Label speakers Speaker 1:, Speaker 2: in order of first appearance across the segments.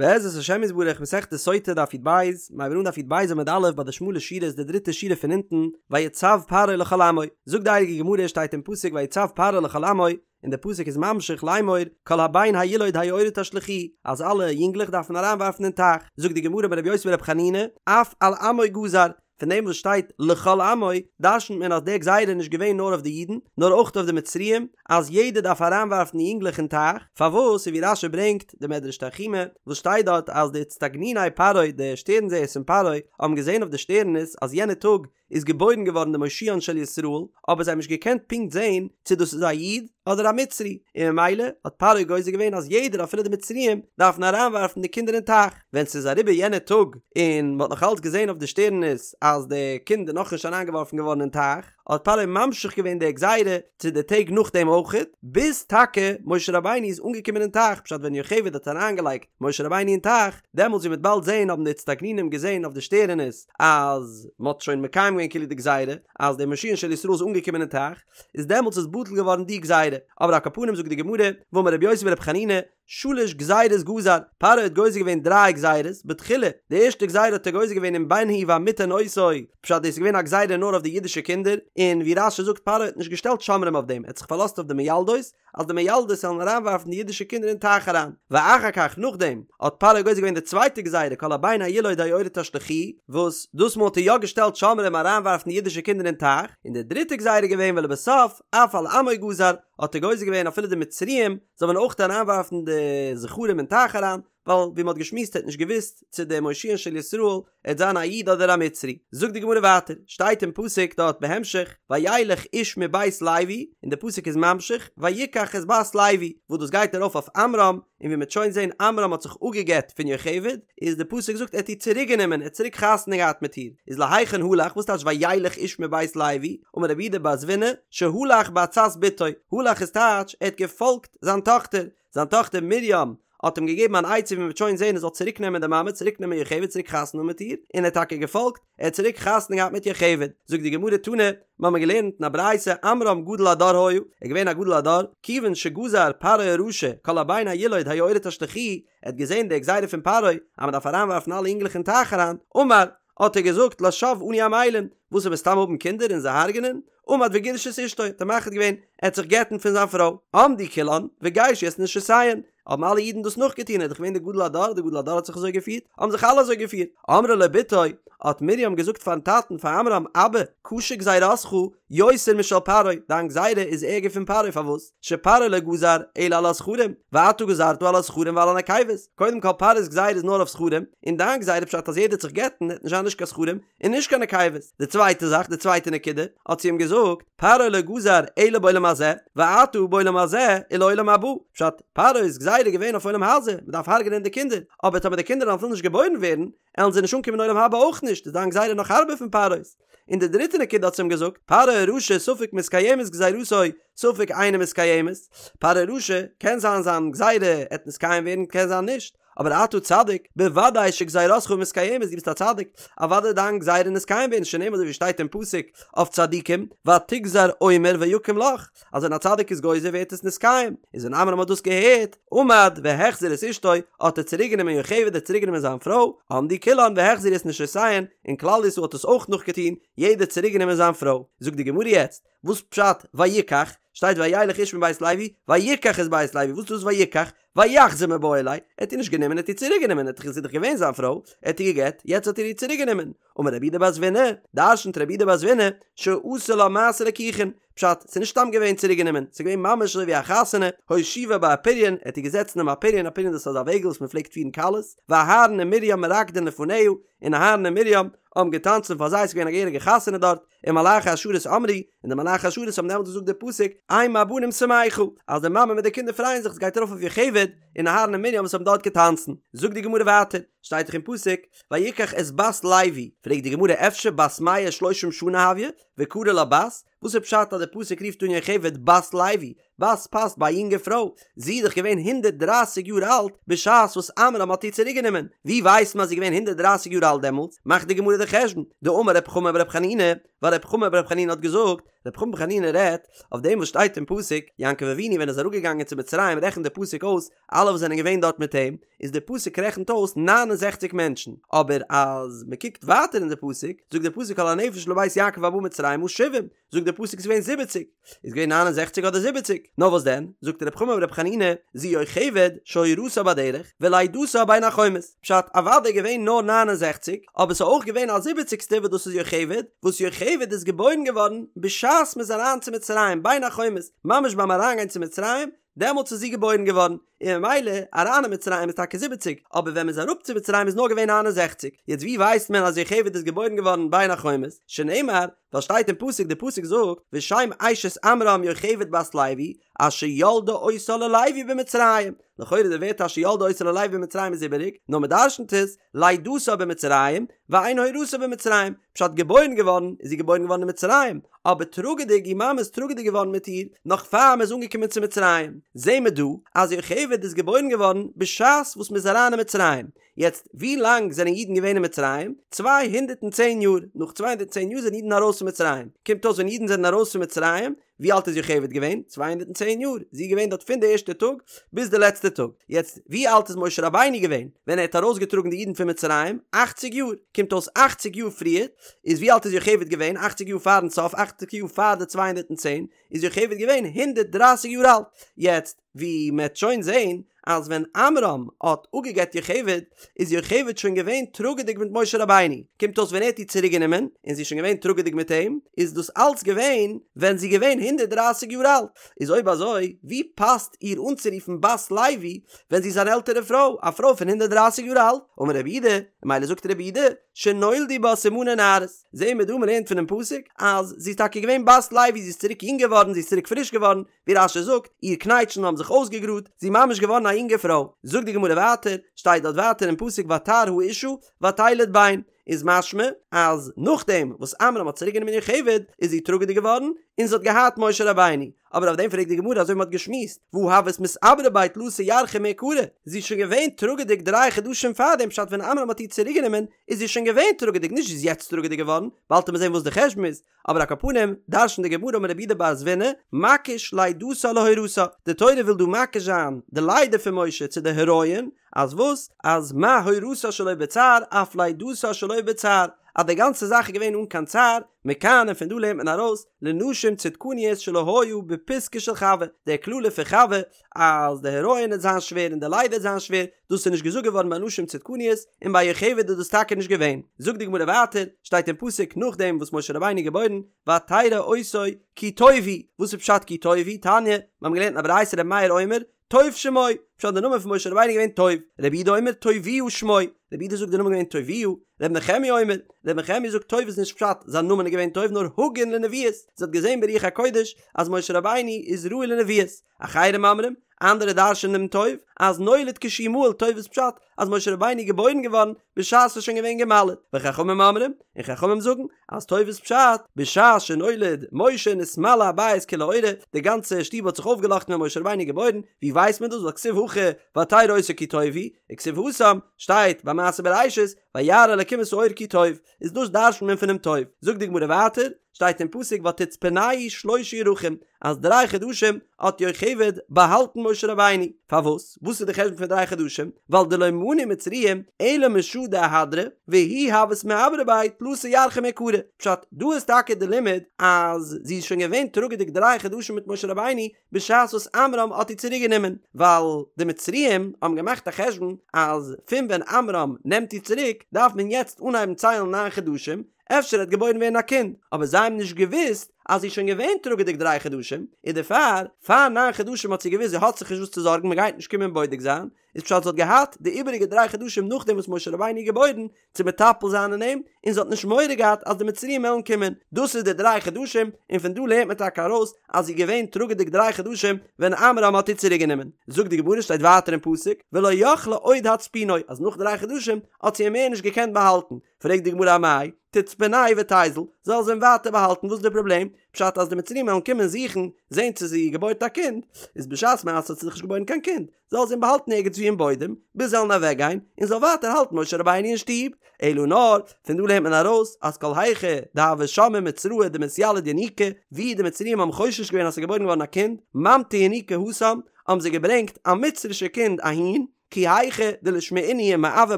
Speaker 1: בעזרת השם יתברך מסכת סוטה דף י"ב, מיר הייבן אן דף י"ב עמוד א' ביי די שמאלע שורות די דריטע שורה פון אונטן, ויצו פרעה לכל עמו, זאגט די הייליגע גמרא שטייט אין פסוק ויצו פרעה לכל עמו, און די פסוק איז ממשיך לאמור כל הבן הילוד היאורה תשליכוהו, אז אלע יונגלעך דארף מען אריינווארפן אין טייך, זאגט די גמרא אמר רבי יוסי ברבי חנינא, אף על עמו גזר, פון דעם וואס שטייט לכל עמו, דרשנ'ט מען אז די גזירה איז נישט געווען נאר אויף די אידן, נאר אויך אויף די מצריים, אז יעדער דארף אריינווארפן די יונגלעך אין טייך, פארוואס? און ווי רש"י ברענגט, די מדרש תנחומא, וואס שטייט דארט אז די אצטגניני פרעה, די שטערן זעערס פון פרעה, האבן געזען אויף די שטערנעס אז יענע טאג איז געבוירן געווארן די מושיען של ישראל, אבער זיי האבן נישט געקענט פונקט זען צו דאס איז א איד אדער א מצרי, און ממילא האט פרעה גוזר געווען אז יעדער אפילו די מצריים דארפן אריינווארפן די קינדער אין טייך. ווען ס'איז אריבער יענער טאג און מ'האט נאך אלץ געזען אויף די שטערנעס אז די קינד איז נאכנישט אריינגעווארפן געווארן אין טייך, האט פרעה ממשיך געווען די גזירה צו די טעג נאכדעם אויכעט, ביז טאקע משה רבינו איז אנגעקומען אין טייך, פשט ווען יוכבד האט אריינגעלייגט משה רבינו אין טייך, דעמאלטס ווי מ'וועט באלד זען האבן די אצטגנינים געזען אויף די שטערענעס אז מ'האט שוין מקיים געווען כאילו די גזירה, אז דער מושיען של ישראל איז אנגעקומען אין טייך, איז דעמאלטס איז בטל געווארן די גזירה, אבער על כל פנים זאגט די גמרא, ואמר רבי יוסי ברבי חנינא, שלש גזירות גזר, פרעה האט גוזר געווען דריי גזירות, בתחילה, די ערשטע גזירה האט ער גוזר געווען אם בן הוא והמתן אותו, פשט דאס איז געווען א גזירה נאר אויף די אידישע קינדער, און ווי רש"י זאגט פרעה האט נישט געשטעלט שומרים אויף דעם, ער האט זיך פארלאזט אויף די מיילדות, אז די מיילדות זאלן אריינווארפן די אידישע קינדער אין טייך אריין. ואחר כך, נאכדעם, האט פרעה גוזר געווען די צווייטע גזירה כל הבן הילוד היאורה תשליכוהו, וואס דאס מאל האט ער יא געשטעלט שומרים אריינווארפן די אידישע קינדער אין טייך, און די דריטע גזירה איז געווען ולבסוף, אף על עמו גזר, האט ער גוזר געווען אפילו די מצריים זאל מען אויך אריינווארפן די זכרים אין טייך אריין, ווייל ווי מ'האט געשמועסט ער האט נישט געוואוסט צו דער מושיען של ישראל עט זיין א איד אדער א מצרי. זאגט די גמרא ווייטער, שטייט אין פסוק דארט בהמשך, וילך איש מבית לוי, און די פסוק איז ממשיך, ויקח את בת לוי, וואס דאס גייט ארויף אויף עמרם, און ווי מ'עט שוין זען עמרם האט זיך אפגעגט פון יוכבד, איז די פסוק זאגט ער האט איר צוריק גענומען, ער האט צוריק חתונה געהאט מיט איר, איז להיכן הלך, וואס טייטש וילך איש מבית לוי, אמר רב יהודה בר זבינא, שהלך בעצת בתו, הלך איז טייטש ער האט געפאלגט זיין טאכטער, זיין טאכטער מרים האט אים געגעבן אן עצה ווי מ'וועט שוין זען ער זאל צוריק נעמען די מאמע, צוריק נעמען יוכבד, צוריק חתונה האבן מיט איר, און ער האט טאקע געפאלגט, ער האט צוריק חתונה געהאט מיט יוכבד. זאגט די גמרא תנא, מיר האבן געלערנט אין א ברייתא עמרם גדול הדור היה, ער איז געווען א גדול הדור, כיוון שגזר פרעה הרשע כל הבן הילוד היאורה תשליכוהו, ער האט געזען די גזירה פון פרעה אז מען דארף אריינווארפן אלע אינגלעך אין טייך אריין, אמר, האט ער געזאגט לשוא אנו עמלים, וואס וועט מען סתם האבן קינדער און זיי הרג'נען? עמד וגירש את אשתו, האט ער מחליט געווען, ער העט זיך גט'ן פון זיין פרוי. עמדו כולן, וגירשו את נשותיהן, האבן אלע אידן דאס נאכגעטון, ער איז דאך געווען דער גדול הדור, דער גדול הדור האט זיך אזוי געפירט, האבן זיך אלע אזוי געפירט. אמרה לו בתו, האט מרים געזאגט פארן טאטן, פאר עמרם, אבא, קשה גזירתך יותר משל פרעה, דיין גזירה איז ערגער פון פרעה, פארוואס? שפרעה לא גזר אלא על הזכרים, ואתה גזרת על הזכרים ועל הנקבות, קודם כל פרעה'ס גזירה איז נאר אויף זכרים, און דיין גזירה פשט אז יעדער העט זיך גט'ן העט נישט זיין נישט קיין זכרים און נישט קיין נקבות, די צווייטע זאך, די צווייטע נקודה, האט זי אים געזאגט, פרעה לא גזר אלא בעולם הזה, ואתה בעולם הזה ולעולם הבא, פשט, פרעה'ס גזירה איז געווען אויף עולם הזה, מען דארף הרג'נען די קינדער, אבער טאמער די קינדער וועלן אפילו נישט געבוירן ווערן, עלן זיי נישט אנקומען עולם הבא אויך נישט, איז דיין גזירה נאך הארבער פון פרעה'ס. און די דריטע נקודה האט זי אים געזאגט, פרעה הרשע ספק מתקיימת גזירתו ספק אינה מתקיימת, פרעה הרשע, קען זיין זיין גזירה עט נתקיים ווערן קען זיין נישט, אבער אתה צדיק, בוודאי שגזירתך מתקיימת, דו ביסט א צדיק, אוודאי דיין גזירה נתקיים ווערן, שנאמר אזוי ווי שטייט אין פסוק אויף צדיקים, ותגזר אומר ויקם לך, אז ווען א צדיק איז גוזר ווערט עס נתקיים, איז ווען עמרם האט דאס געהערט, עמד והחזיר את אשתו, האט ער צוריק גענומען יוכבד האט צוריק גענומען זיין פרוי, עמדו כולן והחזירו את נשותיהן, און כלל ישראל האט עס אויך נאכגעטון, יעדער צוריק גענומען זיין פרוי. זאגט די גמרא יעצט, וואס פשט ויקח? שטייט וילך איש מבית לוי, ויקח את בת לוי, וואס איז דאס ויקח? ויחזיר מיבעי ליה, ער האט איר נישט גענומען, ער האט איר צוריק גענומען, ער האט זי איז דאך געווען זיין פרוי, ער האט איר געגעט, יעצט האט ער איר צוריק גענומען. אמר רב יהודה בר זבינא, דרשנט רב יהודה בר זבינא, שעשה לה מעשה ליקוחין, פשט, ס'איז נישט סתם געווען צוריק גענומען, ס'איז געווען ממש אזוי ווי א חתונה, הושיבה באפריון, ער האט איר געזעצט אינעם אפריון, אפריון דאס איז אזא וועגל וואס מ'פלעגט פירן כלות, ואהרן ומרים מרקדין לפניה, און אהרן און מרים האבן געטאנצן פאר זיי, ס'איז געווען א געהעריגע חתונה דארט, ומלאכי השרת אמרו, און די מלאכי השרת האבן דעמאלט געזאגט די פסוק, אם הבנים שמחה, אז די מאמע מיט די קינדער פרייען זיך, עס גייט ארויף אויף יוכבד און אהרן און מרים וואס האבן דארט געטאנצן. זאגט די גמרא ווייטער, שטייט דאך אין פסוק, ויקח את בת לוי, פרעגט די גמרא אפשר בת מאה ושלשים שנה הויא, וקרי לה בת, וואס איז פשט אז די פסוק רופט אן יוכבד בת לוי, בת פאסט ביי א יונגע פרוי, זי איז דאך געווען 130 יאר אלט בשעת וואס עמרם האט איר צוריק גענומען, ווי ווייסט מען אז זי איז געווען 130 יאר אלט דעמאלטס? מאכט די גמרא די חשבון, דאמר רב חמא ברב חנינא, ווייל רב חמא ברב חנינא האט געזאגט, רבי חמא בר חנינא רעדט אויף דעם וואס שטייט אין פסוק, יעקב אבינו ווען ער איז אראפגעגאנגען צו מצרים רעכנט דער פסוק אויס אלע וואס זענען געווען דארט מיט אים, איז דער פסוק רעכנט אויס ניין און זעכציק מענטשן, אבער אז מען קוקט ווייטער אין די פסוק, זאגט דער פסוק כל הנפש לבית יעקב הבאה מצרימה שבעים, זאגט דער פסוק ס'איז געווען זיבעציק, איז געווען ניין און זעכציק אדער זיבעציק? נאר וואס דען, זאגט ר' חמא בר' חנינא, זו יוכבד שהורתה בדרך, ולידתה בין החומות, פשט, אוודאי געווען נאר 69, אבער ס'איז אויך געווען א זיבעציגסטע וואס דאס איז יוכבד, וואס יוכבד איז געבוירן געווארן בשעת מ'איז אריין צו מצרים, בין החומות, ממש ביים אריינגיין צו מצרים, דעמאלטס איז זי געבוירן געווארן, און ממילא אריין אין מצרים איז טאקע זיבעציג, אבער ווען מ'איז אראפ צו מצרים איז נאר געווען 69, יעצט ווי ווייסט מען אז יוכבד איז געבוירן געווארן בין החומות? שנאמר, ווייל שטייט אין פסוק, די פסוק זאגט, ושם אשת עמרם יוכבד בת לוי, אשר ילדה אותה ללוי במצרים, לכאורה די ווערטער אשר ילדה אותה ללוי במצרים איז איבעריג, נאר מ'דרשנ'ט עס, לידתה במצרים, ואין הורתה במצרים, פשט געבוירן געווארן איז זי געבוירן געווארן אין מצרים, אבער טראגעדיג איר מאמע איז טראגעדיג געווארן מיט איר נאך פאר מ'איז אנגעקומען צו מצרים, זעהן מיר דא אז יוכבד איז געבוירן געווארן בשעת וואס מ'איז אריין אין מצרים, יעצט ווי לאנג זענען אידן געווען אין מצרים? 210 יאר, נאך 210 יאר זענען אידן ארויס פון מצרים, קומט אויס ווען אידן זענען ארויס פון מצרים ווי אלט איז יוכבד געווען? 210 יאר, זי איז געווען דארט פון די ערשטע טאג ביז די לעצטע טאג, יעצט ווי אלט איז משה רבינו געווען ווען ער האט ארויסגעטראגן די אידן פון מצרים? אכציג יאר, קומט אויס אכציג יאר פריער, איז ווי אלט איז יוכבד געווען? אכציג יאר פארן סוף, אכציג יאר פאר די 210, איז יוכבד געווען 130 יאר אלט, יעצט ווי מען וועט שוין זעהן אז ווען עמרם האט אפגעגט יוכבד איז יוכבד שוין געווען טראגעדיג מיט משה רבינו, קומט אויס ווען ער האט איר צוריק גענומען און זי איז שוין געווען טראגעדיג מיט אים, איז דאס אלץ געווען ווען זי איז געווען 130 יאר אלט, איז אויב אזוי ווי פאסט איר אנצורופן בת לוי ווען זי איז אן עלטערע פרוי, א פרוי פון 130 יאר אלט? אמר רב יהודה, ממילא זאגט רב יהודה, שנולדו בה סימני נערות, זעהן מיר דא מ'לערנט פונעם פסוק אז זי איז טאקע געווען בת לוי זי איז צוריק יונג געווארן זי איז צוריק פריש געווארן, ווי רש"י זאגט, איר קנייטשן האבן זיך אויסגעגראדט, זי איז ממש געווארן א יונגע פרוי. זאגט די גמרא ווייטער, שטייט דארט ווייטער אין פסוק ותהר האשה ותלד בן, איז משמע אז נאכדעם וואס עמרם האט צוריק גענומען יוכבד איז זי טראגעדיג געווארן און זי האט געהאט משה רבינו, אבער אויף דעם פרעגט די גמרא אזוי ווי מען האט געשמועסט, והא הות מתעברא ביה תלתא ירחי מעיקרא, זי איז שוין געווען טראגעדיג דריי חדשים פארדעם פשט ווען עמרם האט איר צוריק גענומען איז זי שוין געווען טראגעדיג נישט זי איז יעצט טראגעדיג געווארן, באלד וועט מען זען וואס די חשבון איז, אבער על כל פנים, דרש'נט די גמרא אמר רב יהודה בר זבינא, מקיש לידתה להורתה, די תורה וויל דא מקיש זיין די לידה פון משה צו די הריון, אז וואס? אז מה הורתה שלא בצער אף לידתה שלא בצער, אז די גאנצע זאך איז געווען אן קיין צער, מכאן און פון דא לערנט מען ארויס, לנשים צדקניות שלא היה בפיתקא של חוה, די קללה פון חוה, אז די הריון וועט זיין שווער און די לידה וועט זיין שווער, דאס איז נישט געזאגט געווארן ביי נשים צדקניות, און ביי יוכבד איז דאס טאקע נישט געווען. זאגט די גמרא ווייטער, שטייט אין פסוק נאכדעם וואס משה רבינו איז געבוירן, ותרא אותו כי טוב הוא, וואס איז פשט כי טוב הוא? תניא, מיר האבן געלערנט אין א ברייתא רבי מאיר אומר, טוב שמו, פשט די נאמען פון משה רבינו איז געווען טוב, רבי יהודה אומר טוביה שמו, רבי יהודה זאגט די נאמען איז געווען טוביה, רבי נחמיה אומר, רבי נחמיה זאגט טוב איז נישט פשט זיין נאמען איז געווען טוב נאר הגון לנביאות, זי האט געזען ברוח הקודש אז משה רבינו איז ראוי לנביאות, אחרים אומרים, אנדערע דרש'ענען דעם טוב, אז נולד כשהוא מהול טוב איז פשט אז משה רבינו איז געבוירן געווארן בשעת ס'איז שוין געווען גע'מל'ט, וחכמים אומרים, און חכמים זאגן, אז טוב איז פשט, בשעת שנולד משה נתמלא הבית כולו אורה, די גאנצע שטוב האט זיך אויפגעלאכטן ווען משה רבינו איז געבוירן, ווי ווייסט מען דאס ווייל כתיב הכא ותרא אותו כי טוב הוא, וכתיב התם, שטייט ביי מעשה בראשית, וירא אלקים את האור כי טוב, איז דאס דרש'נט מען פונעם טוב. זאגט די גמרא ווייטער, שטייט אין פסוק ותצפנהו שלשה ירחים, אז דריי חדשים האט יוכבד באהאלטן משה רבינו. פארוואס? וואס איז די חשבון פון דריי חדשים? ווייל דלא מנו מצריים אלא משעה דאהדרה, והיא הות מיעברא ביה תלתא ירחי מעיקרא. פשט, דא איז טאקע די לימוד אז זי איז שוין געווען טראגעדיג דריי חדשים מיט משה רבינו בשעת וואס עמרם האט איר צוריק גענומען, ווייל די מצריים האבן געמאכט א חשבון אז פון ווען עמרם נעמט איר צוריק דארף מען יעצט אנהייבן ציילן ניין חדשים, אפשר וועט געבוירן ווערן א קינד, אבער זיי האבן נישט געוואוסט אז זי איז שוין געווען טראגעדיג דריי חדשים, און דערפאר, פאר ניין חדשים האט זי געוואוסט זי האט זיך נישט וואס צו זארגן מען גייט נישט קומען בודק זיין, איז פשט זי האט געהאט די איבעריגע דריי חדשים נאכדעם וואס משה רבינו איז געבוירן צו מטפל זיין אין אים, און זי האט נישט מורא געהאט אז די מצריים וועלן קומען, דאס איז די דריי חדשים, און פון דא לערנט מען טאקע ארויס אז זי איז געווען טראגעדיג דריי חדשים ווען עמרם האט איר צוריק גענומען. זאגט די גמרא שטייט ווייטער אין פסוק ולא יכלה עוד הצפינו אז נאך דריי חדשים האט זי אים מער נישט געקענט באהאלטן, פרעגט די גמרא אמאי תצפנהו ותיזיל, זאל זי אים ווייטער באהאלטן וואס איז די פראבלעם? פשט אז די מצריים וועלן קומען זוכן זען צו זי געבוירט א קינד, איז בשעת מעשה האט זי זיך נישט געבוירן קיין קינד, זאל זי אים באהאלטן ערגעץ וואו אין בוידעם, ביז זיי וועלן אוועק גיין, און זאל ווייטער האלטן משה רבינו אין שטוב. אלא נאר, פון דא לערנט מען ארויס אז כל היכא דהוו שמעי מצראי דמתיליד ינוקא, ווי די מצריים האבן חושש געווען אז ס'איז געבוירן געווארן א קינד, ממטו ינוקא התם, האבן זיי געברענגט א מצרישע קינד אהין, כי היכי דלישמעינהו ומעוי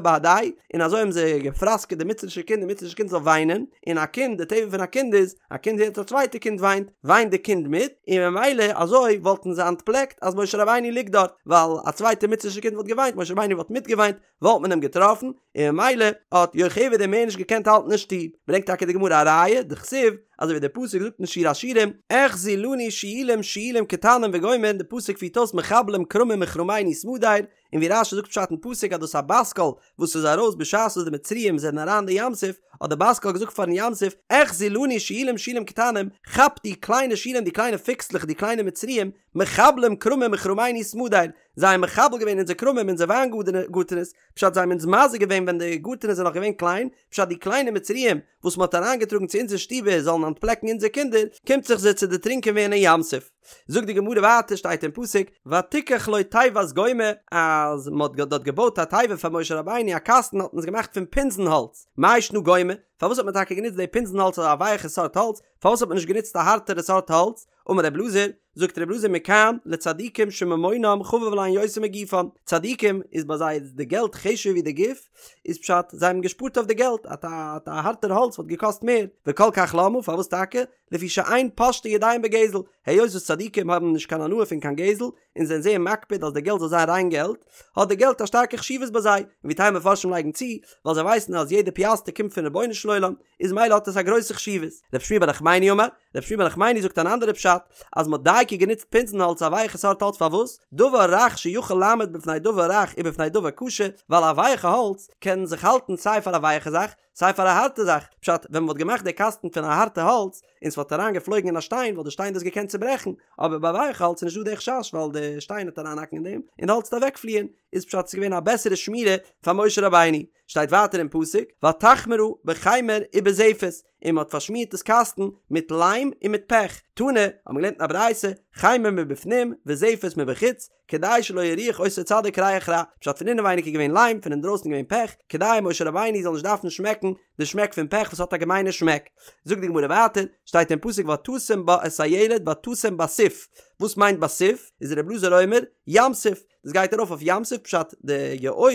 Speaker 1: בהדייהו, און אזוי האבן זיי געפראסקעט די מצרישע קינד די מצרישע קינד זאל וויינען, און א קינד, די טבע פון א קינד איז, א קינד הערט א צווייטע קינד וויינט, וויינט די קינד מיט, און ממילא אזוי וואלטן זיי אנטפלעקט אז משה רבינו ליגט דארט, ווייל א צווייטע מצרישע קינד וואלט געוויינט, משה רבינו וואלט מיטגעוויינט, וואלט מען אים געטראפן, און ממילא האט יוכבד אים מער נישט געקענט האלטן אין שטוב. ברענגט טאקע די גמרא א ראיה, דכתיב, אזוי ווי דער פסוק זאגט אין שיר השירים, אחזו לנו שועלים שועלים קטנים וגומר, די פסוק פירט אויס מחבלים כרמים מכרמינו סמדר, און ווי רש"י זאגט פשט אין פסוק אז דאס איז א בת קול וואס איז ארויס בשעת וואס די מצריים זענען אריין די ים סוף, האט די בת קול געזאגט פארן ים סוף, אחזו לנו שועלים שועלים קטנים, כאפ די קליינע שועלים די קליינע פיקסלעך די קליינע מצריים, מחבלים כרמים מכרמינו סמדר, זיי האבן מחבל געווען אונזער כרמים אונזער וויינגארטענעס, פשט זיי האבן אונז מזיק געווען ווען די גארטענעס זענען נאך געווען קליין, פשט די קליינע מצריים וואס מען האט אריינגעטראגן צו אונזער שטיבער זאלן אנטפלעקן אונזער קינדער, קומט זיך זיי צו דערטרינקען ווערן אין ים סוף. זאגט די גמרא ווייטער שטייט אין פסוק ותקח לו תיבת גומא אז מען האט דארט געבויט א תיבה פאר משה רבינו א קאסטן האט מען עס געמאכט פון פינזן האלץ, מאי שנא גומא, פארוואס האט מען טאקע גענוצט די פינזן האלץ אזא ווייעכע סארט האלץ, פארוואס האט מען נישט גענוצט א הארטערע סארט האלץ, אמר רב אלעזר, זאגט רב אלעזר מכאן לצדיקים שממונם חביב עליהן יותר מגופן, צדיקים איז ביי זיי די געלט חשוב'ער ווי די גוף, איז פשט זיי האבן געשפארט אויף די געלט, א א הארטער האלץ וואלט געקאסט מער, וכל כך למה, פארוואס טאקע? לפי שאין פושטין ידיהם בגזל, היות וואס צדיקים האבן נישט קיין הנאה פון קיין גזל, און זענען זייער מקפיד אז די געלט זאל זיין ריין געלט, האט די געלט א שטארקע חשיבות ביי זיי, און ווי טייל מפרשים לייגן צו, ווייל זיי ווייסן אז יעדע פיאסטער קומט פון רבונו של עולם, איז מילא האט עס א גרויסע חשיבות. רב שמואל בר נחמני אמר, רב שמואל בר נחמני זאגט אן אנדערע פשט, אז מ'האט דייקא גענוצט פינזן האלץ א ווייכע סארט האלץ פארוואס? דבר רך שיכול לעמוד בפני דבר רך ובפני דבר קשה, ווייל א ווייכע האלץ קען זיך האלטן סיי פאר א ווייכע זאך, סיי פאר א הארטע זאך, פשט, ווען מ'וואלט געמאכט די קאסטן פון א הארטע האלץ, און ס'וואלט אריין געפלויגן אין א שטיין וואלט די שטיין דאס געקענט צוברעכן, אבער ביי ווייכע האלץ איז נישטא די חשש ווייל די שטיין וועט אריינהאקן אין דעם, און די האלץ וועט אוועקפליען, איז פשט ס'איז געווען א בעסערע שמירה פאר משה רבינו. שטייט ווייטער אין פסוק, ותחמרה בחמר ובזפת, און מ'האט פארשמירט דאס קאסטן מיט ליים און מיט פעך, תנא, האט מען געלערנט אין א ברייתא, חמר מבפנים וזפת מבחוץ, כדי שלא יריח אותו צדיק ריח רע, פשט פון אינעווייניג איז געווען ליים, פון אינדרויסן איז געווען פעך, כדי משה רבינו זאל נישט דארפן שמעקן די שמעק פון פעך וואס האט א געמיינע שמעק. זאגט די גמרא ווייטער, שטייט אין פסוק ותשם בה את הילד ותשם בסוף, וואס מיינט בסוף? איז ר' אלעזר אומר, ים סוף, דאס גייט ארויף אויף ים סוף פשט די יאור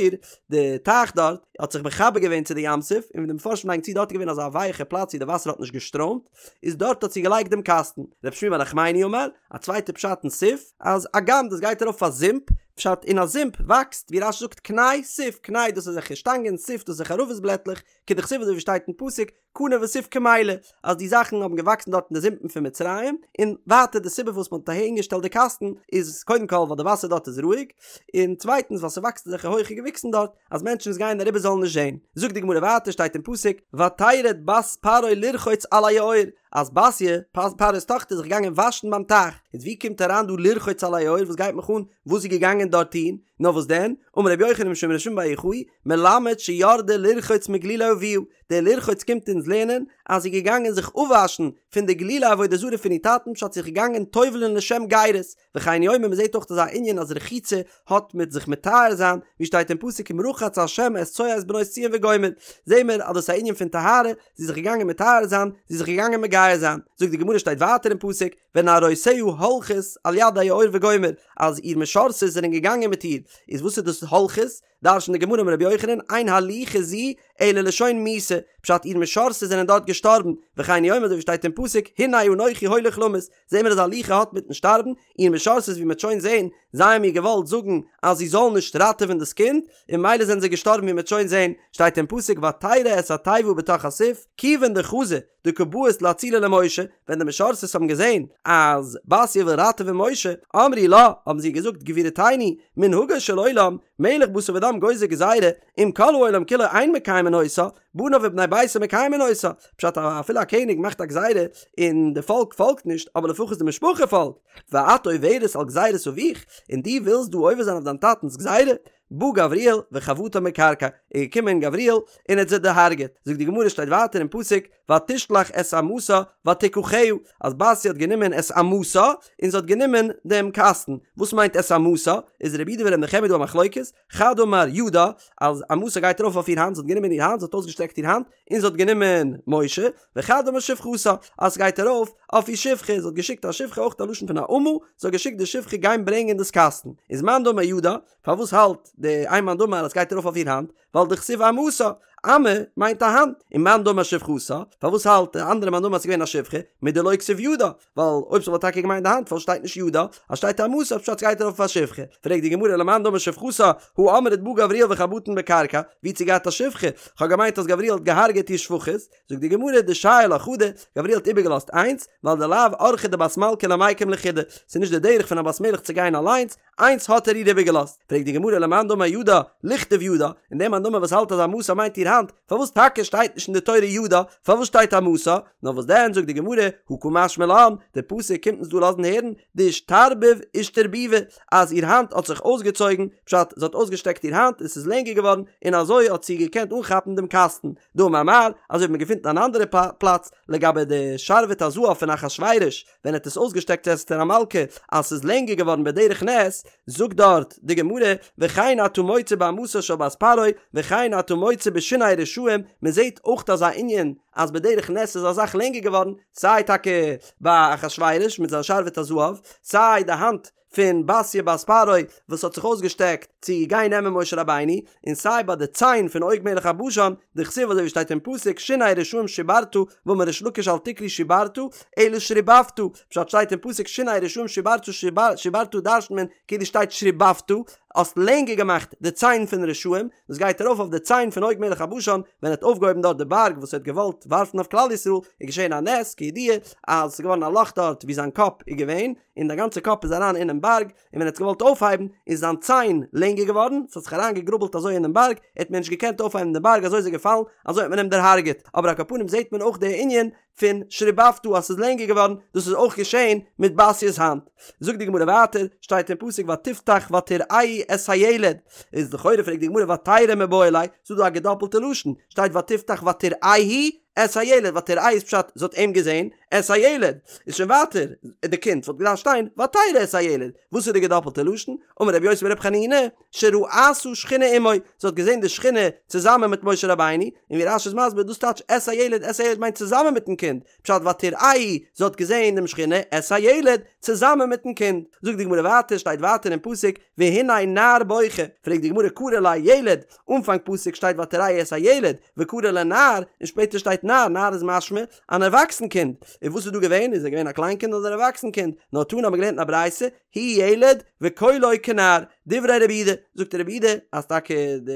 Speaker 1: די טייך דארט האט זיך מחבר געווען צו די ים סוף און ווי די מפרשים לייגן צו דארט איז געווען אזא ווייעכע פלאץ ווי די וואסער האט נישט געשטראמט איז דארט האט זי געלייגט דעם קאסטן רב שמואל בר נחמני אמר א צווייטע פשט אין סוף אז אגם דאס גייט ארויף אויף א זומפ פשט אין א זומפ וואקסט ווי רש"י זאגט קנה סוף קנה דאס איז אזעלכע שטאנגען סוף דאס איז ערבות בלעטלעך כדכתיב אזוי ווי שטייט אין פסוק קנה וסוף קמלו, אז די זאכן האבן געוואקסן דארט אין די זומפן פון מצרים, און ווייטער די סיבה פארוואס מען האט אהין געשטעלט די קאסטן איז קודם כל ווייל די וואסער דארט איז רואיג, און צווייטנס ווייל ס'וואקסט אזעלכע הויכע געוויקסן דארט אז מענטשן וואס גייען אריבער זאלן נישט זען. זאגט די גמרא ווייטער שטייט אין פסוק ותרד בת פרעה לרחוץ על היאור, אז בתיה, פרעה'ס טאכטער איז זיך געגאנגען וואשן ביים טייך, איז ווי קומט אריין דא לרחוץ על היאור וואס גייט מיך אן וואס זי איז געגאנגען דארט טון, נאר וואס דען, אמר רבי יוחנן משום רבי שמעון בר יוחאי, מלמד שירדה לרחוץ מגלולי אביה, דער לרחוץ קומט אונז לערנען אז זי איז געגאנגען זיך אפוואשן פון די גלולי עבודה זרה פון איר טאטן פשט זי איז געגאנגען טובל'ן לשם גירות, וכן הוא אומר מען זעט אויך אזא ענין אז רחיצה האט מיט זיך מטהר זיין, ווי שטייט אין פסוק אם רחץ ה' את צואת בנות ציון וגומר, זעהן מיר אז דאס איז א ענין פון טהרה, זי איז זיך געגאנגען מטהר זיין, זי איז זיך געגאנגען מגייר זיין, זאגט די גמרא שטייט ווייטער אין פסוק ונערותיה הולכות על יד היאור וגומר, אז איר משרתות זענען געגאנגען מיט איר, איז וואס איז דאס הולכות? דרש'נט די גמרא אמר רבי יוחנן, אין הליכה זו אלא לשון מיתה, פשט איר משרתות זענען דארט געשטארבן, וכן הוא אומר אזוי ווי שטייט אין פסוק, הנה אנכי הולך למות, זעהן מיר אז הליכה האט מיטן שטארבן, איר משרתות ווי מ'העט שוין זעהן, זיי האבן איר געוואלט זאגן אז זי זאל נישט ראטעווען דאס קינד, און ממילא זענען זיי געשטארבן ווי מ'העט שוין זעהן, שטייט אין פסוק ותרא את התיבה בתוך הסוף, כיוון דחזו דקא בעית לאצולי למשה, ווען די משרתות האבן געזען אז בתיה וויל ראטעווען משה, אמרו לה, האבן זיי געזאגט, גבירתנו, מנהגו של עולם, מלך בשר ודם גוזר גזירה, אם כל העולם כולו אין מקיימין אותה, בניו ובני ביתו מקיימין אותה, פשט אפילו א קעניג מאכט א גזירה און די פאלק פאלגט נישט, אבער לפחות די משפחה פאלגט, ואת עוברת על גזירת אביך, און דו ווילסט דא עובר זיין אויף דיין טאטנ'ס גזירה? בא גבריאל וחבטן בקרקע, איז געקומען גבריאל און האט זיי דערהארגעט, זאגט די גמרא שטייט ווייטער אין פסוק ותשלח את אמתה ותקחה, אז בתיה האט גענומען את אמתה און זי האט גענומען דעם קאסטן, וואס מיינט את אמתה? איז רבי יהודה ורבי נחמיה דא א מחלוקת, חד אמר ידה, אז אמתה גייט ארויף אויף איר האנט, זי האט גענומען איר האנט, זי האט אויסגעשטרעקט איר האנט, און זי האט גענומען משה, וחד אמר שפחתה, אז ס'גייט ארויף אויף איר שפחה, זי האט געשיקט א שפחה אויך א לשון פון א אמה, זי האט געשיקט די שפחה גיין ברענגען דאס קאסטן, איז מאן דאמר ידה, פארוואס האלט די איין מאן דאמר אז ס'גייט ארויף אויף איר האנט, ווייל דכתיב אמתה, אמה מיינט א האנט, און מאן דאמר שפחתה, פארוואס האלט די אנדערע מאן דאמר אז ס'איז געווען א שפחה, מדלא כתיב ידה, ווייל אויב ס'וואלט טאקע געמיינט די האנט פארוואס שטייט נישט ידה, אז שטייט אמתה פשט ס'גייט ארויף אויף א שפחה, פרעגט די גמרא למאן דאמר שפחתה, הא אמרת בא גבריאל וחבטן בקרקע, ווי האט זי געהאט א שפחה, כ'האב געמיינט אז גבריאל האט געהארגעט איר שפחות, זאגט די גמרא דשייר לה חדא, גבריאל האט איבערגעלאזט איינס, ווייל דלאו אורחא דבת מלכא למיקם לחודה, ס'איז נישט די דרך פון א בת מלך צו גיין אליינס, איינס האט ער איר איבערגעלאזט, פרעגט די גמרא למאן דאמר ידה, ליכתוב ידה, און דער מאן דאמר וואס האלט אז אמתה מיינט איר האנט, פארוואס טאקע שטייט נישט אין די תורה ידה, פארוואס שטייט אמתה? נאר וואס דען זאגט די גמרא, הא קא משמע לן, די פסוק קומט אונז דא לאזן הערן, דאישתרבב אישתרבובי, אז איר האנט האט זיך אויסגעצויגן, פשט, זי האט אויסגעשטעקט איר האנט און ס'איז לענגער געווארן, און אזוי האט זי געקענט אנכאפן דעם קאסטן, דאמר מר, אזוי ווי מ'געפינט אין אן אנדערע פלאץ, לגבי די שרביט הזהב פון אחשורוש, ווען ער האט עס אויסגעשטעקט צו אסתר המלכה אז ס'איז לענגער געווארן בדרך נס, זאגט דארט די גמרא, וכן אתה מוצא באמתה של בת פרעה, וכן אתה מוצא בשיני רשעים, מען זעט אויך אזא ענין אז בדרך נס איז א זאך לענגער געווארן, סיי טאקע ביי אחשורוש מיט זיין שרביט הזהב, סיי די האנט פון בתיה בת פרעה וואס האט זיך אויסגעשטעקט צו גיין נעמען משה רבינו, און סיי ביי די ציין פון עוג מלך הבשן, דכתיב אזוי ווי שטייט אין פסוק שיני רשעים שברת, ואמר ריש לקיש אל תקרי שברת, אלא שריבבת, פשט שטייט אין פסוק שיני רשעים שברת שברת דרש'נט מען כאילו שטייט שריבבת, האסט לענגער געמאכט די ציין פון רשעים, דאס גייט ארויף אויף די ציין פון עוג מלך הבשן, ווען ער האט אויפגעהויבן דארט די בארג וואס ער האט געוואלט ווארפן אויף כלל ישראל, איז געשען א נס כידוע אז עס איז געווארן א לאך דארט ווי זיין קאפ איז געווען, און די גאנצע קאפ איז אריין אינעם בארג, און ווען ער האט געוואלט אויפהייבן איז זיין ציין לענגער געווארן, ס'האט זיך אריין געגראבלט אזוי אינעם בארג, ער האט מער נישט געקענט אויפהייבן דעם בארג אזוי איז ער געפאלן, אזוי האט מען אים דערהארגעט, אבער על כל פנים זעט מען אויך די ענין פון שריבבת אז ס'איז לענגער געווארן, דאס איז אויך געשען מיט בתיה'ס האנט. זאגט די גמרא ווייטער, שטייט אין פסוק ותפתח ותראהו את הילד, איז לכאורה פרעגט די גמרא ותרא מיבעי ליה, ס'איז דא א געדאפלטע לשון, שטייט ותפתח ותראהו את הילד, ותראהו איז פשט זי האט אים געזען, את הילד, איז שוין ווייטער די קינד וואלט געדארפט שטיין ותרא את הילד, וואס איז די געדאפלטע לשון? אמר רבי יוסי ברבי חנינא, שראתה שכינה עמו, זי האט געזען די שכינה צוזאמען מיט משה רבינו, און ווי רש"י איז מסביר דאס טייטש את הילד, את הילד מיינט צוזאמען מיטן קינד, פשט ותראהו, זי האט געזען דעם שכינה, את הילד, צוזאמען מיטן קינד. זאגט די גמרא ווייטער, שטייט ווייטער אין פסוק, והנה נער בוכה, פרעגט די גמרא קרי ליה ילד, אנפאנג פסוק שטייט ותראהו את הילד, וקרי ליה נער, און שפעטער שטייט נער, נער איז משמע אן ערוואקסן קינד, און וואס איז דא געווען, איז ער געווען א קליין קינד אדער אן ערוואקסן קינד, נאר תנא האבן מיר געלערנט אין א ברייתא, הוא ילד וקולו כנער, דברי רבי יהודה, זאגט רבי יהודה אז טאקע די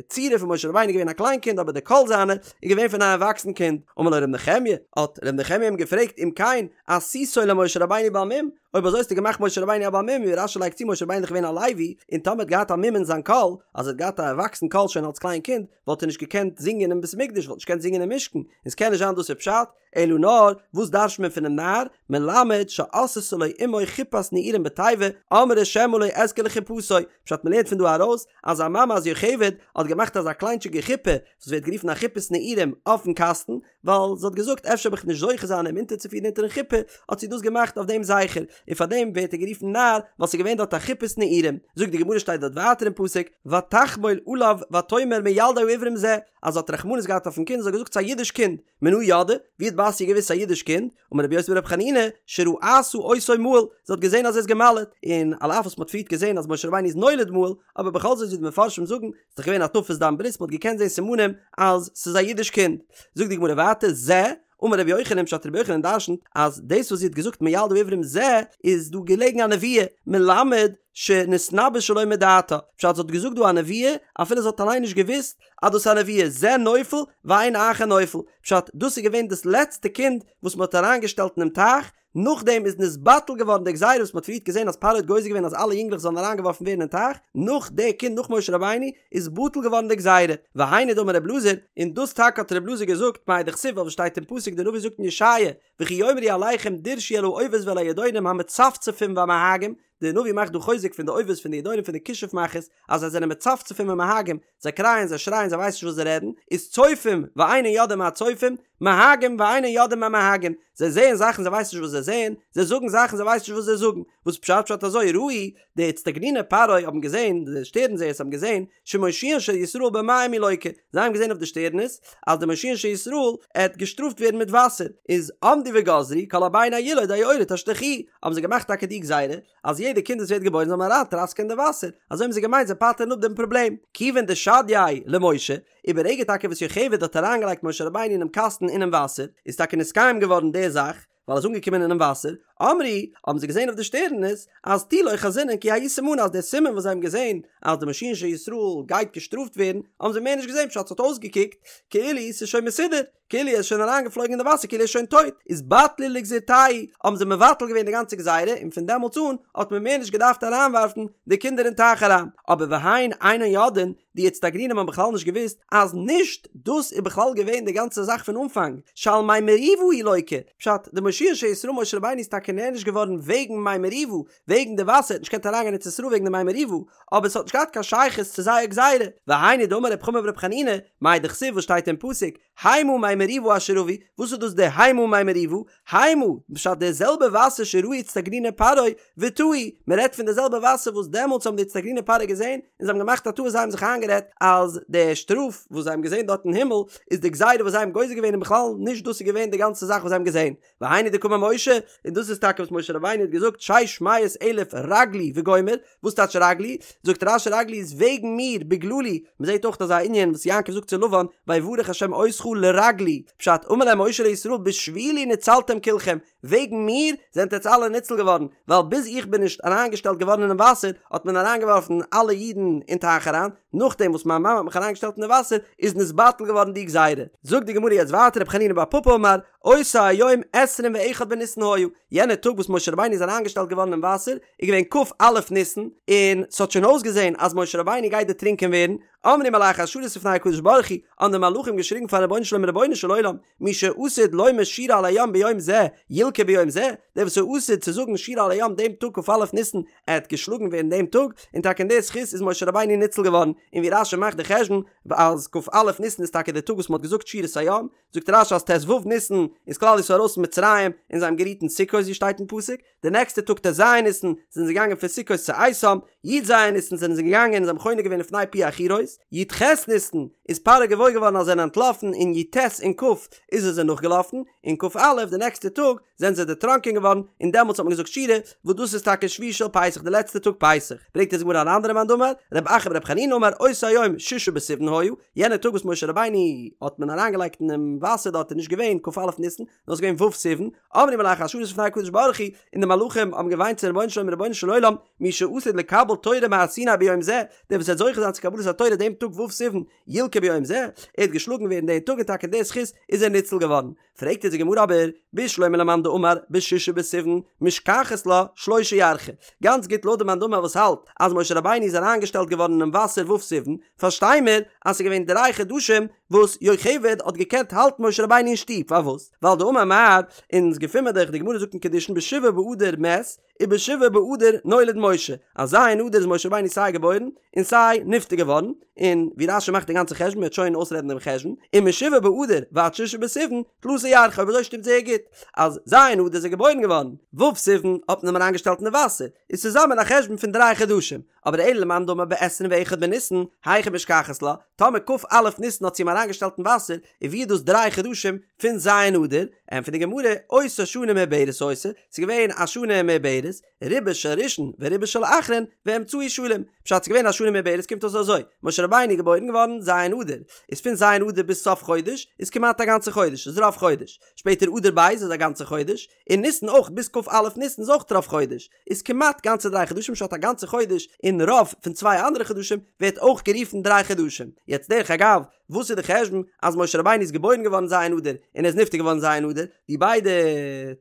Speaker 1: צורה פון משה רבינו איז געווען א קליין קינד אבער די קול זיינע איז געווען פון א ערוואקסן קינד, אמר לו ר' נחמיה, האט ר' נחמיה אים געפרעגט אם כן עשיתו למשה רבינו בעל מום, אויב אזוי האסטו געמאכט משה רבינו א בעל מום, ווי רש"י לייגט צו משה רבינו איז דאך געווען א לוי, און טאמער האט געהאט א מום אין זיין קול, אז ער האט געהאט א ערוואקסן קול שוין אלס קליין קינד, וואלט ער נישט געקענט זינגען אין בית המקדש, וואלט נישט געקענט זינגען אין משכן, און ס'קען נישט זיין דאס איז פשט, אלא נאר, וואס דרש'ט מען פונעם נער, מלמד שעשתה לו אמו חופת נעורים בתיבה, אמרה שמא לא אזכה לחופתו, פשט מ'לערנט פון דא ארויס, אז זיין מאמע אז יוכבד האט געמאכט אזא קליינטשיגע חופה, וואס ווערט גערופן א חופת נעורים אויפן קאסטן, ווייל זי האט געזאגט אפשר וועל איך נישט זוכה זיין אים אונטערצופירן אונטערן חופה, האט זי דאס געמאכט אויף דעם זכר, און פאר דעם ווערט ער גערופן נער, ווייל ס'איז געווען דארט א חופת נעורים. זאגט די גמרא שטייט דארט ווייטער אין פסוק, ותחמול עליו ותאמר מילדי העברים זה, אז זי האט רחמנות געהאט אויפן קינד, זי האט געזאגט ס'איז א אידיש קינד, מנא ידעה, ווי האט בתיה געוואוסט ס'איז א אידיש קינד, אמר רבי יוסי ברבי חנינא, שראתה אותו מהול, זי האט געזען אז ער איז גע'מל'עט, און על אף וואס מ'האט פריערט געזען אז משה רבינו איז נולד מהול, אבער בכל זאת ווי די מפרשים זאגן, ס'איז דאך געווען הטפת דם ברית, מ'האט געקענט זען סימנים אז ס'איז א אידיש קינד. זאגט די גמרא ווייטער, זה, אמר רבי יוחנן, פשט רבי יוחנן דרשנ'ט אז דאס וואס זי האט געזאגט מילדי העברים זה, איז דא געלעגן א נבואה, מלמד שנתנבאה שלא מדעתה, פשט זי האט געזאגט דא א נבואה אפילו זי האט אליין נישט געוואוסט אז דאס איז א נבואה, זה נופל ואין אחר נופל, פשט דאס איז געווען דאס לעצטע קינד וואס מ'האט אריינגעשטעלט אינעם טייך, נאכדעם איז נתבטל געווארן די גזירה וואס מ'האט פריערט געזען אז פרעה האט גוזר געווען אז אלע יונגלעך זאלן אריינגעווארפן ווערן אין טייך, נאך די קינד נאך משה רבינו איז בטל געווארן די גזירה, והיינו דאמר רב אלעזר, און דאס טאקע האט רב אלעזר געזאגט מאי דכתיב וואס שטייט אין פסוק די נביא זאגט אין ישעיה, וכי יאמרו אליכם דרשו אל האובות ואל הידעונים המצפצפים והמהגים, די נביא מאכט דא חוזק פון די אובות פון די ידעונים פון די כישוף מאכערס אז זיי זענען מצפצפים ומהגים, זיי קרייען זיי שרייען זיי ווייסן נישט וואס זיי רעדן, איז צופים ואינן יודעים מה צופים, מהגים ואינן יודעים מה מהגים, זיי זעען זאכן זיי ווייסן נישט וואס זיי זעען, זיי זאגן זאכן זיי ווייסן נישט וואס זיי זאגן, וואס פשט פשט אזוי ראו די אצטגניני פרעה האבן געזען, די שטערן זעערס האבן געזען, שמושיען של ישראל במים הוא לוקה, זיי האבן געזען אויף די שטערנעס אז די מושיען של ישראל עט געשטראפט ווערן מיט וואסער, איז עמדו וגזרו כל הבן הילוד היאורה תשליכוהו, האבן זיי געמאכט טאקע די גזירה אז יעדע קינד וואס ווערט געבוירן זאל מען אריין טראסקען אין די וואסער, אזוי האבן זיי געמיינט זיי פטר'ן אפ דעם פראבלעם, כיוון דשדייה למשה, וברגע טאקע וואס יוכבד האט אריינגעלייגט משה רבינו אינעם קאסטן אינעם וואסער, איז טאקע נתקיים געווארן די זאך, ווייל ער איז אנגעקומען אינעם וואסער, אמרו, האבן זיי געזען אויף די שטערנעס, אז תו לא חזינן כי ההוא סימנא אז דער סימן וואס זיי האבן געזען אז די מושיען של ישראל גייט געשטראפט ווערן, האבן זיי מער נישט געזען פשט ס'האט אויסגעקוקט כאילו ס'איז שוין מסודר, כאילו ער איז שוין אריינגעפלויגן אין די וואסער כאילו ער איז שוין טויט, איז בטלו לגזירתייהו, האבן זיי מבטל געווען די גאנצע גזירה און פון דעמאלטס אן האט מען מער נישט געדארפט אריינווארפן די קינדער אין טייך אריין, אבער והן אינן יודעין, די אצטגנינים האבן בכלל נישט געוואוסט אז נישט דאס איז בכלל געווען די גאנצע זאך פון אנפאנג, שעל מי מריבה הוא לוקה, פשט, די מושיען של ישראל משה רבינו איז טאקע נענש געווארן וועגן מי מריבה, וועגן די וואסער, ער האט נישט געקענט אריינגיין אין ארץ ישראל וועגן די מי מריבה, אבער עס האט נישט געהאט קיין שייכות צו זייער גזירה, והיינו דאמר רב חמא ברב חנינא, מאי דכתיב וואס שטייט אין פסוק, המה מי מריבה אשר רבו, וואס איז דאס די המה מי מריבה? המה, פשט די זעלבע וואסער שראו אצטגניני פרעה וטעו, מען רעדט פון די זעלבע וואסער וואס דעמאלטס האבן די אצטגניני פרעה געזען און זיי האבן געמאכט א טעות זיי האבן זיך איינגערעדט אז די שטראף וואס זיי האבן געזען דארט אין הימל איז די גזירה וואס זיי האבן גוזר געווען און בכלל נישט דאס איז געווען די גאנצע זאך וואס זיי האבן געזען, והיינו דקאמר משה, און דאס איז טאקע וואס משה רבינו האט געזאגט שש מאות אלף רגלי וגומר, וואס טייטש רגלי? זאגט רש"י רגלי איז וועגן מיר, בגללי, מען זעט אויך אזא ענין וואס יעקב זאגט צו לבן, ויברך השם אותך לרגלי, פשט, אמר להם משה לישראל בשבילי נצלתם כלכם, וועגן מיר זענט עטץ אלע ניצל געווארן, ווייל ביז איך בין נישט אריינגעשטעלט געווארן אינעם וואסער האט מען אריינגעווארפן אלע אידן אין טייך אריין, נאכדעם וואס מיין מאמע האט מיך אריינגעשטעלט אין די וואסער איז נתבטל געווארן די גזירה. זאגט די גמרא יעצט ווייטער רב חנינא בר פפא אמר, אותו היום עשרים ואחד בניסן היה, יענער טאג וואס משה רבינו איז אריינגעשטעלט געווארן אין וואסער איז געווען כ"א ניסן, און ס'האט שוין אויסגעזען אז משה רבינו גייט דערטרינקען ווערן, אמרו מלאכי השרת לפני הקדוש ברוך הוא, האבן די מלאכים געשריגן פארן רבונו של עולם רבונו של עולם, מי שעתיד לומר שירה על הים ביום זה, ילקה ביום זה, דער וואס איז עתיד צו זאגן שירה על הים דעם טאג כ"א ניסן, עט געשלאגן ווערן דעם טאג, און טאקע אין די זכות איז משה רבינו ניצל געווארן, און ווי רש"י מאכט די חשבון אז כ"א ניסן איז טאקע דער טאג וואס מ'האט געזאגט שירת הים, זאגט רש"י אז ט"ו ניסן איז כלל ישראל ארויס פון מצרים און זיי האבן גערוהט אין סוכות ווי שטייט אין פסוק, די נעקסטע טאג ט"ז ניסן זענען זיי געגאנגען פון סוכות צו איתם, י"ז ניסן זענען זיי געגאנגען און זיי האבן חונה געווען לפני פי החירות, י"ח ניסן איז פרעה געוואויר געווארן אז זיי זענען אנטלאפן און י"ט און כ' איז ער זיי נאכגעלאפן, און כ"א די נעקסטע טאג זענען זיי דערטראנקען געווארן און דעמאלטס האט מען געזאגט שירה, וואס דאס איז טאקע שביעי של פסח די לעצטע טאג פסח, ברענגט אונז די גמרא אן אנדערע מאן דאמר, רב אחא ברב חנינא אמר אותו היום ששה בסיוון היה, יענע טאג וואס משה רבינו האט מען אריינגעלייגט אינעם וואסער דארט איז נישט געווען כ"א ניסן, נאר ס'איז געווען ו' סיוון, אמרו מלאכי השרת לפני הקדוש ברוך הוא, און די מלאכים האבן געוויינט צום רבונו של עולם רבונו של עולם, מי שעתיד לקבל תורה מהר סיני ביום זה, דער וואס וועט זוכה זיין צו קבלת התורה דעם טאג ו' סיוון, ילקה ביום זה, ער וועט געשלאגן ווערן דעם טאג און טאקע אין די זכות איז ער ניצל געווארן. פרעגט אונז די גמרא אבער, בשלמא למאן דאמר בשישה בסיוון משכחת לה שלשה ירחי, גאנץ גוט לויט די מאן דאמר וואס האלט אז משה רבינו איז אריינגעשטעלט געווארן אינעם וואסער ו' סיוון, פארשטיי מיר אז ס'איז געווען דריי חדשים וואס יוכבד האט געקענט האלטן משה רבינו אין שטוב, פארוואס? ווייל דאמר מר, אונז געפין מיר דאך, די גמרא זאגט אין קידושין בשבעה באדר מת, ובשבעה באדר נולד משה, אז ז' אדר איז משה רבינו סיי געבוירן און סיי נפטר געווארן, און ווי רש"י מאכט די גאנצע חשבון מ'וועט שוין אויסרעדן דעם חשבון, ומשבעה באדר ועד שישה בסיוון תלתא ירחי, אויב אזוי שטימט זייער גוט אז ז' אדר איז ער געבוירן געווארן, ו' סיוון האט מען אים אריינגעשטעלט אין די וואסער, איז צוזאמען א חשבון פון דריי חדשים, אבער אלא למאן דאמר בעשרים ואחד בניסן, היכי משכחת לה, טאמער כ"א ניסן האט זי אים אריינגעשטעלט אין וואסער, איז ווי איז דאס דריי חדשים פון ז' אדר? ענטפערט די גמרא, אותה שנה מעוברת היתה, ס'איז געווען א שנה מעוברת, רובה של ראשון ורובה של אחרון, ואמצעי שלם. פשט ס'איז געווען א שנה מעוברת קומט אויס אזוי, משה רבינו איז געבוירן געווארן ז' אדר, איז פון ז' אדר ביז סוף חודש איז כמעט א גאנצע חודש, איז רוב חודש, שפעטער אדר ב' איז א גאנצע חודש, און ניסן אויך ביז כ"א ניסן איז אויך רוב חודש, איז כמעט גאנצע דריי חדשים פשט א גאנצע חודש און רוב פון צוויי אנדערע חדשים ווערט אויך גערופן דריי חדשים. יעצט דרך אגב, וואס איז די חשבון אז משה רבינו איז געבוירן געווארן ז' אדר און ער איז נפטר געווארן ז' אדר, די ביידע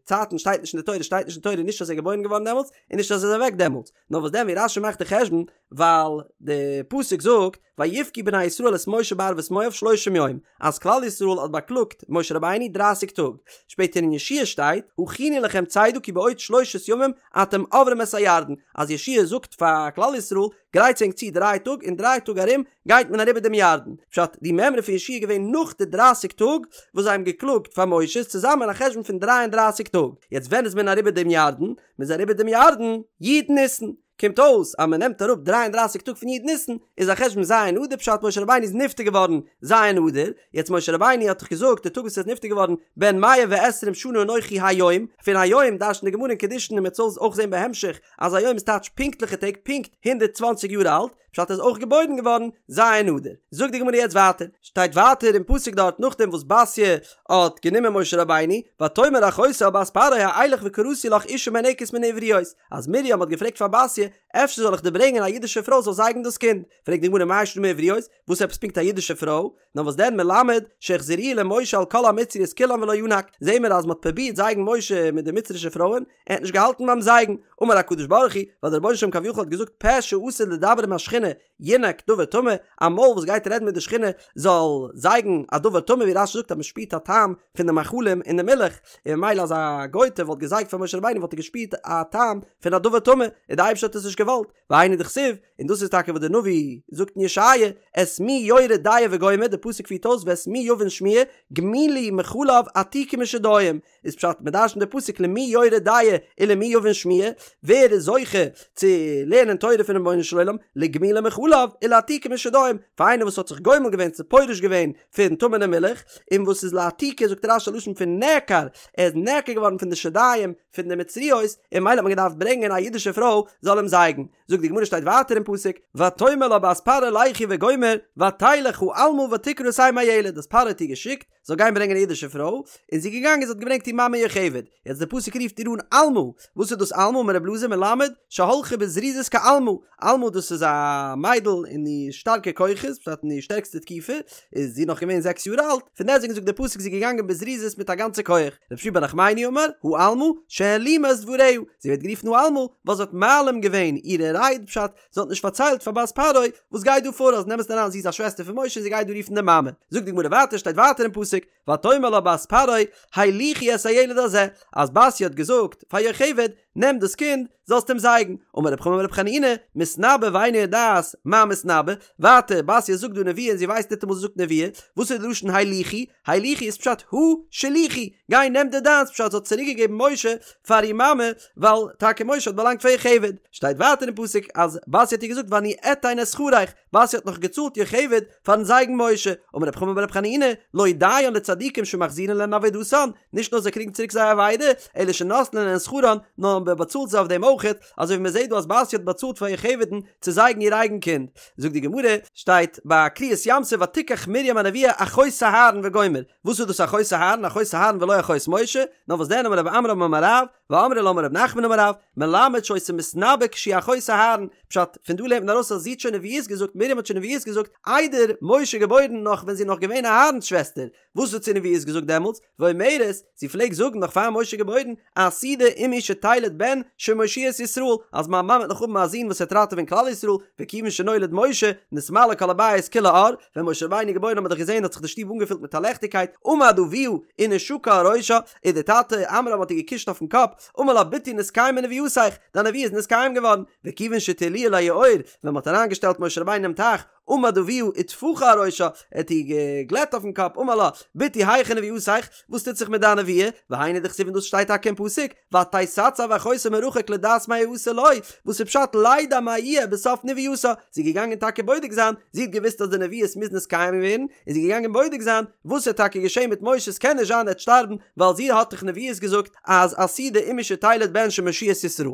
Speaker 1: צייטן שטייט נישט אין די תורה, שטייט נישט אין תורה נישט אז ער איז געבוירן געווארן דעמאלטס און נישט אז ער איז אוועק דעמאלטס, נאר וואס דען ווי רש"י מאכט די חשבון ווייל די פסוק זאגט ויבכו בני ישראל את משה בערבות מואב שלושים יום אז כלל ישראל האט באקלאגט משה רבינו דרייסיג טאג, שפעטער אין יהושע שטייט הכינו לכם צידה כי בעוד שלושת ימים אתם עוברים את הירדן אז יהושע זאגט פאר כלל ישראל גרייטס ענק צו דריי טאג אין דריי טאג ארום גייט מען אריבער דעם ירדן, פשט די מימרא פון יהושע איז געווען נאך די דרייסיג טאג וואס זיי האבן געקלאגט פאר משה איז צוזאמען א חשבון פון דריי און דרייסיג טאג, יעצט ווען איז מען אריבער דעם ירדן? מען איז אריבער דעם ירדן י' ניסן, קומט אויס אז מען נעמט אראפ דריי און דרייסיג טאג פון י' ניסן איז א חשבון ז' אדר פשט משה רבינו איז נפטר געווארן ז' אדר, יעצט משה רבינו האט דאך געזאגט די טאג וואס ער איז נפטר געווארן בן מאה ועשרים שנה אנכי היום, פון היום דרש'נט די גמרא אין קידושין און מען וועט עס אויך זען בהמשך אז היום איז טייטש פונקטליכע טעג פונקט 120 יאר אלט, פשט ער איז אויך געבוירן געווארן ז' אדר. זאגט די גמרא יעצט ווייטער, שטייט ווייטער אין פסוק דארט נאכדעם וואס בתיה האט גענומען משה רבינו, ותאמר אחותו אל בת פרעה האלך וקראתי לך אשה מינקת מן העבריות, אז מרים האט געפרעגט פאר בתיה, אפשר זאל איך דיר ברענגען א אידישע פרוי זאל זייגן דאס קינד, פרעגט די גמרא מאי שנא מעבריות, וואס עפעס פונקט א אידישע פרוי? נאר וואס דען מלמד שהחזירוהו למשה על כל המצריות כולן ולא ינק, זעהן מיר אז מען האט פרובירט זייגן משה מיט די מצרישע פרויען, ער האט נישט געהאלטן ביים זייגן, אמר הקדוש ברוך הוא, ווייל דער רבונו של עולם כביכול האט געזאגט פה שעתיד לדבר עם השכינה ינק דבר טמא, א מויל וואס גייט רעדן מיט די שכינה זאל זייגן א דבר טמא ווי רש"י זאגט אז מען שפירט א טעם פון די מאכלים אין די מילך, און ממילא אז א גויטע וואלט געזייגט פאר משה רבינו וואלט ער געשפירט א טעם פון א דבר טמא, און די אייבערשטער האט עס נישט געוואלט, והיינו דכתיב, און דאס איז טאקע וואס דער נביא זאגט אין ישעיה, את מי יורה דעה וגומר, די פסוק פירט אויס ואת מי יבין שמועה, גמולי מחלב עתיקי משדיים, איז פשט מען דרש'נט די פסוק למי יורה דעה ולמי יבין שמועה, ווער איז זוכה צו לערנען תורה פונעם רבונו של עולם, לגמולי מחלב ולעתיקי משדיים, פאר איינער וואס האט זיך גומל געווען צו פורש געווען פון טמא'נע מילך, און וואס איז לעתיקי זאגט רש"י א לשון פון נעקר, ער איז נעקר געווארן פון די שדיים פון די מצריות, און ממילא האט מען געדארפט ברענגען א אידישע פרוי זאל אים זייגן. זאגט די גמרא שטייט ווייטער אין פסוק, ותאמר לה בת פרעה לכי וגומר, ותלך העלמה ותקרא את אם הילד, אז פרעה האט איר געשיקט זאל גיין ברענגען א אידישע פרוי, און זי איז געגאנגען זי האט געברענגט איר מאמע יוכבד, יעצט די פסוק רופט איר אן עלמה, וואס איז דאס עלמה אמר רבי אלעזר מלמד שהלכה בזריזות כעלמה, עלמה דאס איז א מיידל אין איר שטארקע כוחות, פשט אין איר שטערקסטע תקופה, איז זי נאך געווען זעקס יאר אלט, פון דעסטוועגן זאגט די פסוק זי איז געגאנגען בזריזות מיט א גאנצע כח, רבי שמואל בר נחמני אמר, העלמה, שהעלימה את דבריה, זי ווערט גערופן העלמה, ווייל זי האט מעלים געווען אירע רייד, פשט, זי האט נישט פארציילט פאר בת פרעה וואס גייט דא פאר, אז אין אמת'ן אריין זי איז א שוועסטער פון משה און זי גייט דא רופן די מאמע. זאגט די גמרא ווייטער, שטייט ווייטער אין פסוק, ותאמר לה בת פרעה, הליכי את הילד הזה, אז בתיה האט געזאגט פאר יוכבד, נעם דאס קינד, זאלסט אים זייגן. אמר רב חמא בר רב חנינא, מתנבאה ואינה יודעת מה מתנבאה, ווייטער, בתיה זאגט דא נבואה און זי ווייסט ניטאמאל זי זאגט נבואה, וואס איז די לשון הליכי? הליכי איז פשט הא שליכי, גיי נעם דיר דיינס, פשט זי האט צוריק געגעבן משה פאר איר מאמע, ווייל טאקע משה האט באלאנגט פאר יוכבד. שטייט ווייטער אין פסוק אז בתיה האט איר געזאגט ואני אתן את שכרך, בתיה האט נאך געצאלט יוכבד פארן זייגן משה, אמר רב חמא בר רב חנינא, לא דיין לצדיקים שמחזירין להן אבידתן, נישט נאר זיי קריגן צוריק זייער אבידה, אלא שנותנין להן שכרן, נאר מען באצאלט זיי אויף דעם אויכעט, אזוי ווי מען זעט דא אז בתיה האט באצאלט פאר יוכבד'ן צו זייגן איר אייגן קינד. זאגט די גמרא, שטייט ביי קריעת ים סוף ותקח מרים הנביאה אחות אהרן וגומר, וואס איז דאס אחות אהרן, אחות אהרן ולא אחות משה, נאר וואס דען אמר רב עמרם אמר רב, ואמרי לה אמר רב נחמן אמר רב, מלמד שהיתה מתנבאה כשהיא אחות אהרן, פשט, פון דא לערנט מען ארויס אז זי האט שוין נביאות געזאגט, מרים האט שוין נביאות געזאגט, איידער משה געבוירן נאך ווען זי איז נאך געווען אהרן'ס שוועסטער, וואס האט זי נביאות געזאגט דעמאלטס? ואומרת, זי פלעגט זאגן נאך פאר משה געבוירן, עתידה אמי שתלד בן שמושיע את ישראל, אז מיין מאמע וועט נאך האבן א זון וואס וועט ראטעווען כלל ישראל, וכיוון שנולד משה, נתמלא כל הבית כולו אור, ווען משה רבינו איז געבוירן האט מען דאך געזען האט זיך די שטוב אנגעפילט מיט א לעכטיגקייט, עמד אביה ונשקה על ראשה, און דער טאטע עמרם האט איר געקושט אויפן קאפ, אמר לה בתי נתקיימה נבואתיך, דיין נבואה איז נתקיים געווארן, וכיוון שהטילוהו ליאור, ווען מען האט אריינגעשטעלט משה רבינו אינעם טייך, עמד אביה וטפחה על ראשה, ער האט איר געגלעט אויפן קאפ, אמר לה, בתי היכן נבואתיך, וואס טוט זיך מיט דיין נבואה, והיינו דכתיב און דאס שטייט טאקע אין פסוק, ותתצב אחותו מרחוק לדעת מה יעשה לו, וואס איז פשט לידע מה יהיה בסוף נבואתה, זי איז געגאנגען טאקע בודק זיין, זי האט געוואוסט אז די נבואות מוז נתקיים ווערן, איז זי געגאנגען בודק זיין, וואס וועט טאקע געשען מיט משה, ס'קען נישט זיין ער וועט שטארבן, ווייל זי האט דאך נבואות געזאגט אז עתידה אמי שתלד בן שמושיע את ישראל.